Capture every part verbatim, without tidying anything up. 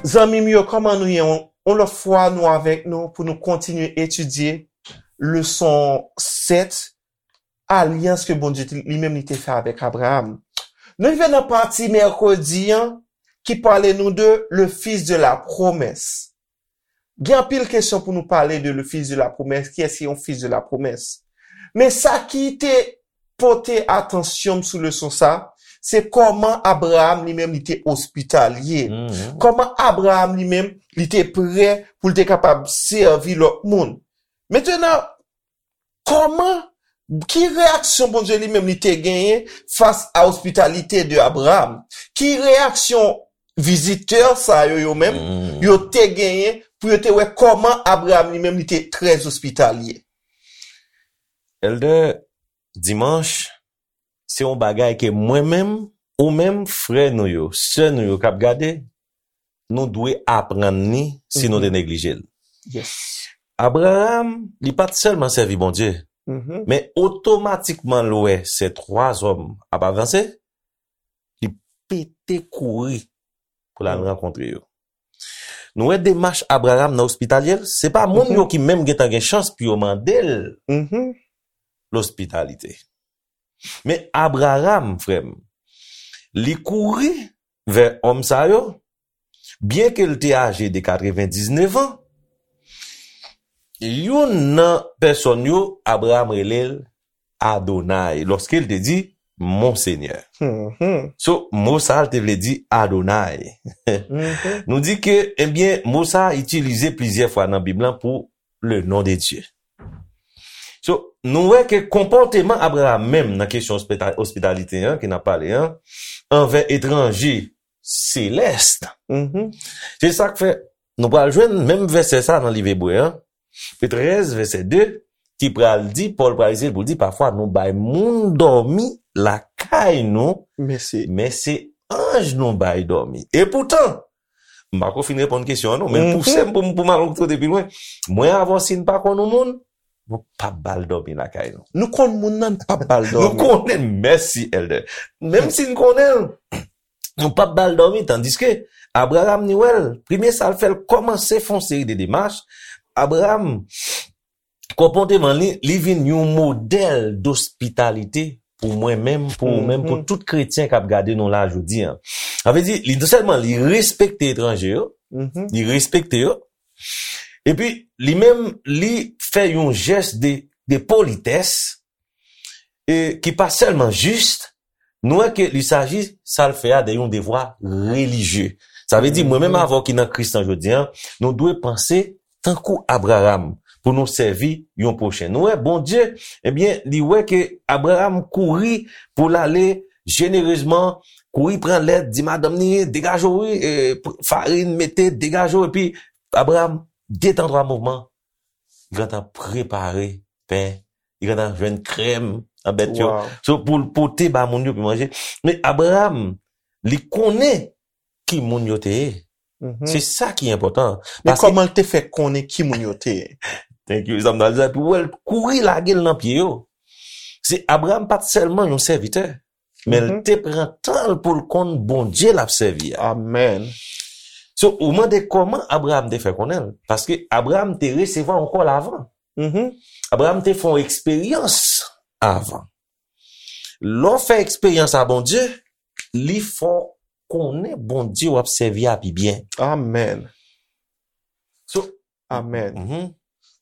Zanmi m yo, kòman nou ye? Yon, yon lòt fwa, nou avèk nou pou nou kontinye etidye leson sèt, alyans ke Bondye te- li menm li te fè avèk Abraram. Nou rive nan pati mèkredi an ki pale nou de le fils de la promesse. Gen anpil kesyon pou nou pale de le fils de la promesse. Kiyès ki yon fils de la promesse? Men sa ki te pote atansyon m sou leson sa, se kòman Abraram li menm li te ospitalye. Kòman Abraram li menm li te prè pou l te kapab sèvi lòt moun. Mentenan, kòman, ki reyaksyon Bondye li menm li te genyen fas a ospitalite de Abraram? Ki reyaksyon vizitè sa yo, yo menm, yo te genyen pou yo te wè kòman Abraram li menm li te trè ospitalye? Elder, dimanch, se yon bagay ke mwen menm, ou menm, frè nou yo, sè nou yo k ap gade, nou dwe aprann li si nou te neglije l. Yes. Abraram, li pa t sèlman sèvi Bondye, men otomatikman l wè se twa zòm ap avanse, li pete kouri pou l al rankontre yo. Nou wè demach Abraram nan ospitalye l, se pa moun yo ki menm gentan gen chans pou yo mande l lospitalite. Men Abraram, frè m, li kouri vè òm sa yo, byenke l te aje de katrevendiznèf an, youn nan pèsòn yo, Abraram rele l Adonay, lòske l te di, Mon Senyè. So, mo sa a, l te vle di Adonay. Nou di ke, ebyen, mo sa a itilize plizyè fwa nan Bib lan pou le nom de Dieu. So, nou wè ke konpòteman Abraram menm nan kesyon ospita- ospitalite an, ke n ap pale an, anvè etranje selès, se sa k fè nou pral jwenn menm vèsè sa nan liv Ebre an, trèz, vèsè de, ki pral di, Pòl pral eseye pou l di, pafwa nou bay moun dòmi lakay nou, men se anj nou bay dòmi. Epoutan, m pako fin reponn kesyon an non, men l pouse m pou m pou m al yon kote pi lwen. Mwen, avè w, si n pa konn yon moun, nou p ap ba l dòmi lakay nou. Nou konn moun nan, n p ap ba l dòmi. Nou konnen l, mèsi, Elder. Menm si n konnen l, nou p ap ba l dòmi, tandiske Abraram, ni wè l, premye sa l fè, l kòmanse fè yon seri de demach. Abraram, konpòteman li, li vin yon modèl dospitalite pou mwen menm, pou ou menm, pou tout kretyen k ap gade nou la jodi an. Sa vle di, li non sèlman li respekte etranje yo, li respekte yo, epi li menm, li fè yon jès de, de politès, e ki pa sèlman jis, nou wè ke li saji sa l fè a de yon devwa relijye. Sa vle di, mwen menm avè w ki nan Kris lan jodi an, nou dwe panse tankou Abraram pou nou sèvi yon pwochen. Nou wè, Bondye, ebyen, li wè ke Abraram kouri pou l ale jenerezman, kouri pran lèt, di madanm li, degaje w, wi, e, farin, mete, degaje w, epi Abraram, de tan, twa mouvman, li gentan prepare pen, li gentan jwenn krèm nan bèt yo. So, pou l pote ba moun yo pou manje. Men Abraram, li konnen ki moun yo te ye. Se sa ki enpòtan. Men kòman l te fè konnen ki moun yo te ye? Thank you, sa m ta di sa, pou wè l kouri lage l nan pye yo. Se Abraram pa t sèlman yon sèvitè, men l te pran tan l pou l konn Bondye l ap sèvi a. Amèn. So, ou mande kòman Abraram te fè konnen l? Paske Abraram te resevwa yon kòl avan. Abraram te fè yon eksperyans avan. Lè w fè eksperyans a Bondye, li fè w konnen Bondye w ap sèvi a pi byen. Amèn. So, amèn.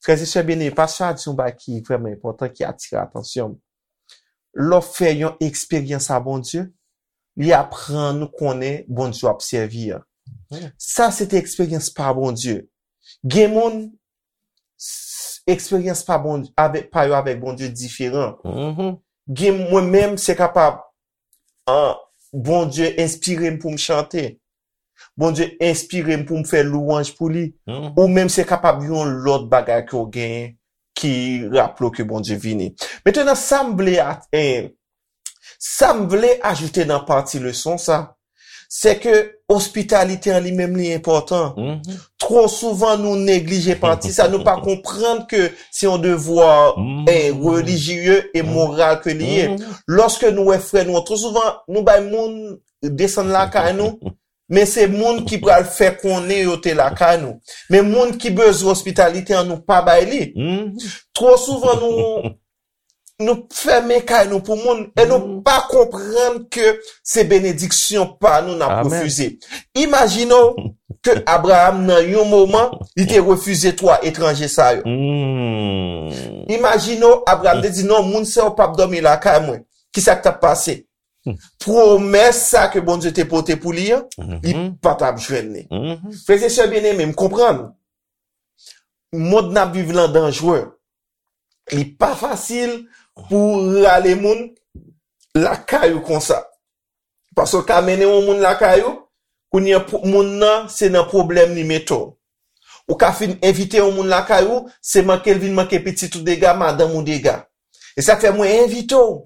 Frè e sè byeneme, pastè a di yon bagay ki vrèman enpòtan, ki atire atansyon m. Lè w fè yon eksperyans a Bondye, li aprann ou konnen Bondye w ap sèvi a. Sa se te eksperyans pa Bondye. Gen moun, s- eksperyans pa Bondye avèk, pa yo avèk Bondye diferan. Gen mwen menm, se kapab, an, Bondye enspire m pou m chante. Bondye enspire m pou m fè lwanj pou li. Ou menm, se kapab yon lòt bagay ke w genyen ki raple w ke Bondye vini. Mentenan, sa m vle a- eh, sa m vle ajoute nan pati leson sa, se ke ospitalite an li menm li enpòtan. Twò souvan, nou neglije pati sa. Nou pa konprann ke se yon devwa, eh, relijye e moral ke li ye. Lòske nou wè frè nou an, twò souvan, nou bay moun desann lakay nou, men se moun ki pral fè konnen yo te lakay nou. Men moun ki bezwen ospitalite an, nou pa bay li. Twò souvan, nou, nou fèmen kay nou pou moun e nou pa konprann ke se benediksyon pa nou n ap refize. Imajine w ke Abraram, nan yon moman, li te refize twa etranje sa yo. Imajine w, Abraram te di, "Non, moun sa yo p ap dòmi lakay mwen." Kisa k t ap pase? Pwomès sa ke Bondye te pote pou li an, li pa t ap jwenn li. Frè e sè byeneme, m konprann. Mond n ap viv lan danjre. Li pa fasil pou w rale moun lakay ou konsa. Paske w ka mennen yon moun lakay ou, kounye a pou- moun nan se nan pwoblèm li mete w. Ou ka fin envite yon moun lakay ou, se manke l vin manke pitit ou dega, madanm ou dega. E sa k fè mwen envite w,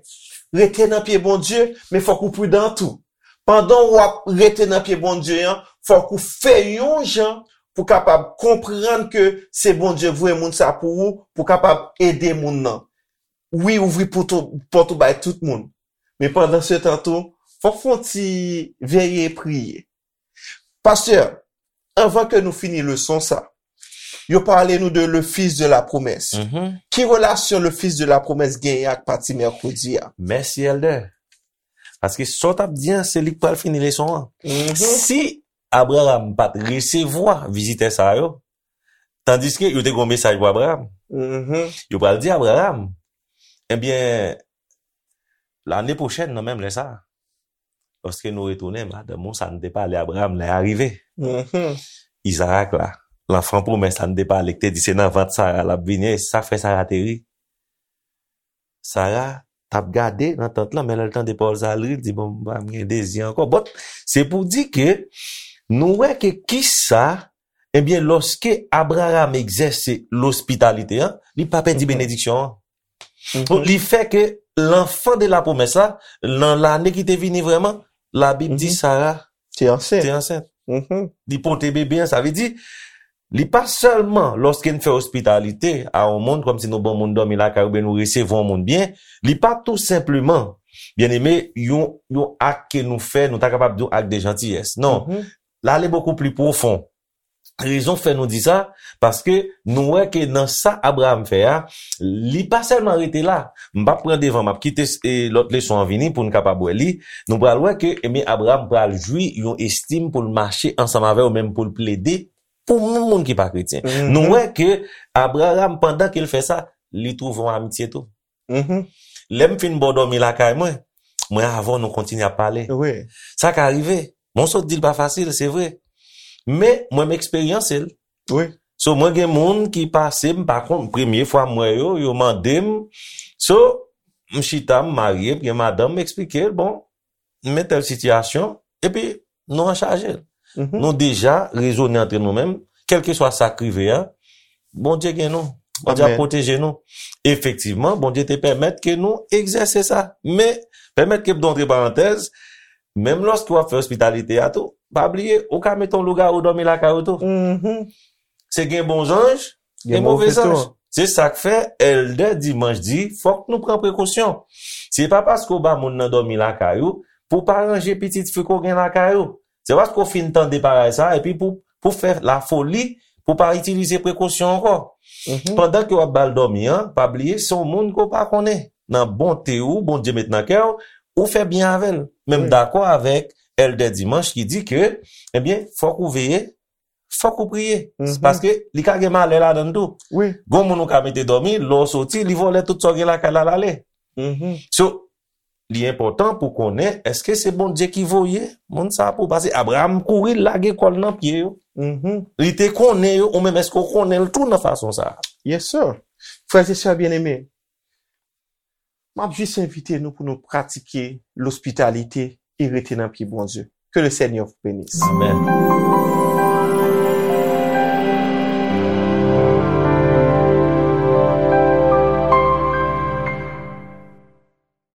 rete nan pye Bondye, men fòk ou pridan tou. Pandan w ap rete nan pye Bondye an, fòk ou fè yon jan pou kapab konprann ke se Bondye k voye moun sa pou ou, pou kapab ede moun nan. Wi, ouvri pòt ou, pòt ou bay tout moun. Men pandan se tan tou, fòk fè yon ti veye priye. Pastè, anvan ke nou fini leson sa, yo pale nou de le fils de la promesse. Ki relasyon le fils de la promesse genyen ak pati mèkredi a? Mèsi, Èldè. Paske sa w t ap di an, se li k pral fini leson an. Si Abraram pa t resevwa vizitè sa yo, tandiske yo te gen yon mesaj pou Abraram. Yo pral di Abraram, ebyen, lane pwochèn, nan menm lè sa a, lòske nou retounen, madanm ou, sa n te pale Abraram, lè a rive. Izarak la, lanfan pwomès la n te pale, ki te di se nan vant Sara l ap vini, e sa k fè Sara te ri. Sara t ap gade nan tant lan, men lè l tande pawòl sa a, l ri, l di, "Bon, m pa gen dezi ankò." Bon, se pou di ke nou wè ke kisa, ebyen, lòske Abraram egzèse lospitalite an, li pa pèdi benediksyon an. Donk, li fè ke l'enfant de la promesse la, nan lane ki te vini vrèman, Labib di Sara te ansent. Te ansent. Li pote bebe an, sa vle di, li pa sèlman lòske n fè ospitalite a yon moun, kòmsi nou ban moun dòmi lakay oubyen nou resevwa yon moun byen, li pa tou senpleman, byeneme, yon, yon ak ke nou fè, nou ta kapab di yon ak de jantiyès. Non. L ale bokou pli pwofon. Rezon k fè nou di sa, paske nou wè ke nan sa Abraram fè a, li pa sèlman rete la. M p ap pran devan, m ap kite, e, lòt leson an vini pou n kapab wè li. Nou pral wè ke, ebyen, Abraram pral jwi yon estim pou l mache ansanm avè yo, menm pou l plede pou moun, moun ki pa kretyen. Nou wè ke Abraram, pandan ke l fè sa, li twouve yon amitye tou. Lè m fin ba w dòmi lakay mwen, mwen avè w nou kontinye ap pale. Sa ka rive. Mwen sot di l pa fasil, se vre. Men, mwen m eksperyanse l. So, mwen gen moun ki pase, m pa konn, premye fwa m wè yo, yo mande m. So, m chita, m marye, m gen madanm, m eksplike l, bon, m men tèl sitiyasyon, epi nou anchaje l. Nou deja rezone antre nou menm, kèlkeswa sa k rive a, Bondye gen nou. Bondye ap pwoteje nou. Efektivman, Bondye te pèmèt ke nou egzèse sa. Men, pèmèt ke m dontre parantèz, menm lòske w ap fè ospitalite a tou, pa bliye, ou ka mete yon lougawou dòmi lakay ou tou. Se gen bon zanj, gen move zanj. Se sa k fè, Èldè Dimanch di, fòk nou pran prekosyon. Se pa paske w ba moun nan dòmi lakay ou, pou w pa ranje pitit fi ke w gen lakay ou. Se paske w fin tande parèy sa, epi pou, pou fè lafoli, pou w pa itilize prekosyon ankò. Pandan ke w ap ba l dòmi an, pa bliye, se yon moun ke w pa konnen. Nan bonte ou, Bondye met nan kè w, ou fè byen avè l. Men m dakò avèk Èldè Dimanch ki di ke, ebyen, fòk ou veye, fòk ou priye. Paske li ka gen malè ladan l tou. Gen yon moun ou ka mete dòmi, lè w soti, li vòlè tout sa w gen lakay la, l ale. So, li enpòtan pou konnen, èske se Bondye ki voye moun sa a pou w? Paske Abraram kouri, l lage kò l nan pye yo. Li te konnen yo, ou menm, èske w konnen l tou nan fason sa a? Yes, sir. Frè e sè byeneme, m ap jis envite nou pou nou pratike lospitalite e rete nan pye Bondye. Que le Seigneur vous bénisse. Amèn.